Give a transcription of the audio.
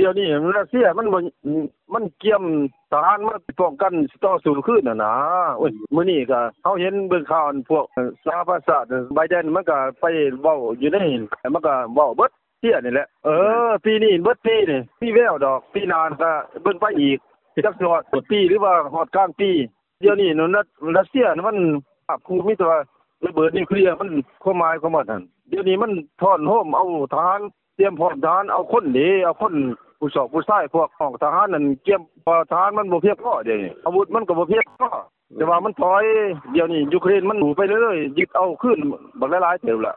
ດຽວນີ້ຣັດເຊຍມັນບໍ່ ມັນກຽມທະຫານມາປ້ອງກັນຕໍ່ສູ້ຄືນຫັ້ນນາ. ໂອ້ຍ ມື້ນີ້ກະເຮົາເຫັນເບິ່ງຂ່າວ ອັນພວກສະຫະປະຊາຊາດ ໄບແດນມັນກະໄປເວົ້າຢູ່ໃນ ມັນກະເວົ້າເບິດເຊຍນີ້ແຫຼະ. ເອີ ປີນີ້ເບິດປີນີ້ ມີແວວດອກ ປີໜ້າກະເບິ່ງໄປອີກ ຈັກຊິຮອດຕົ້ນປີ ຫຼືວ່າຮອດກາງປີ. ດຽວນີ້ນັ້ນ ຣັດເຊຍມັນພາບຄູມີແຕ່ວ່າລະເບີດນິວເຄລຍ ມັນ ຄວາມໝາຍຂອງມັນຫັ້ນ ດຽວນີ້ມັນທ້ອນໂຮມເອົາທະຫານ ຕຽມພ້ອມທະຫານ ເອົາຄົນເດ້ ເອົາຄົນຜູ້ຊອກຜູ້ຊາຍ ພວກຫ້ອງທະຫານນັ້ນກຽມ ເພາະວ່າທະຫານມັນບໍ່ພຽງພໍດຽວນີ້ ອາວຸດມັນກໍບໍ່ພຽງພໍ ແຕ່ວ່າມັນຖອຍ. ດຽວນີ້ຢູເຄຣນມັນໄປເລື້ອຍໆ ຍຶດເອົາຄືນບັກຫຼາຍໆເຕີບລະ.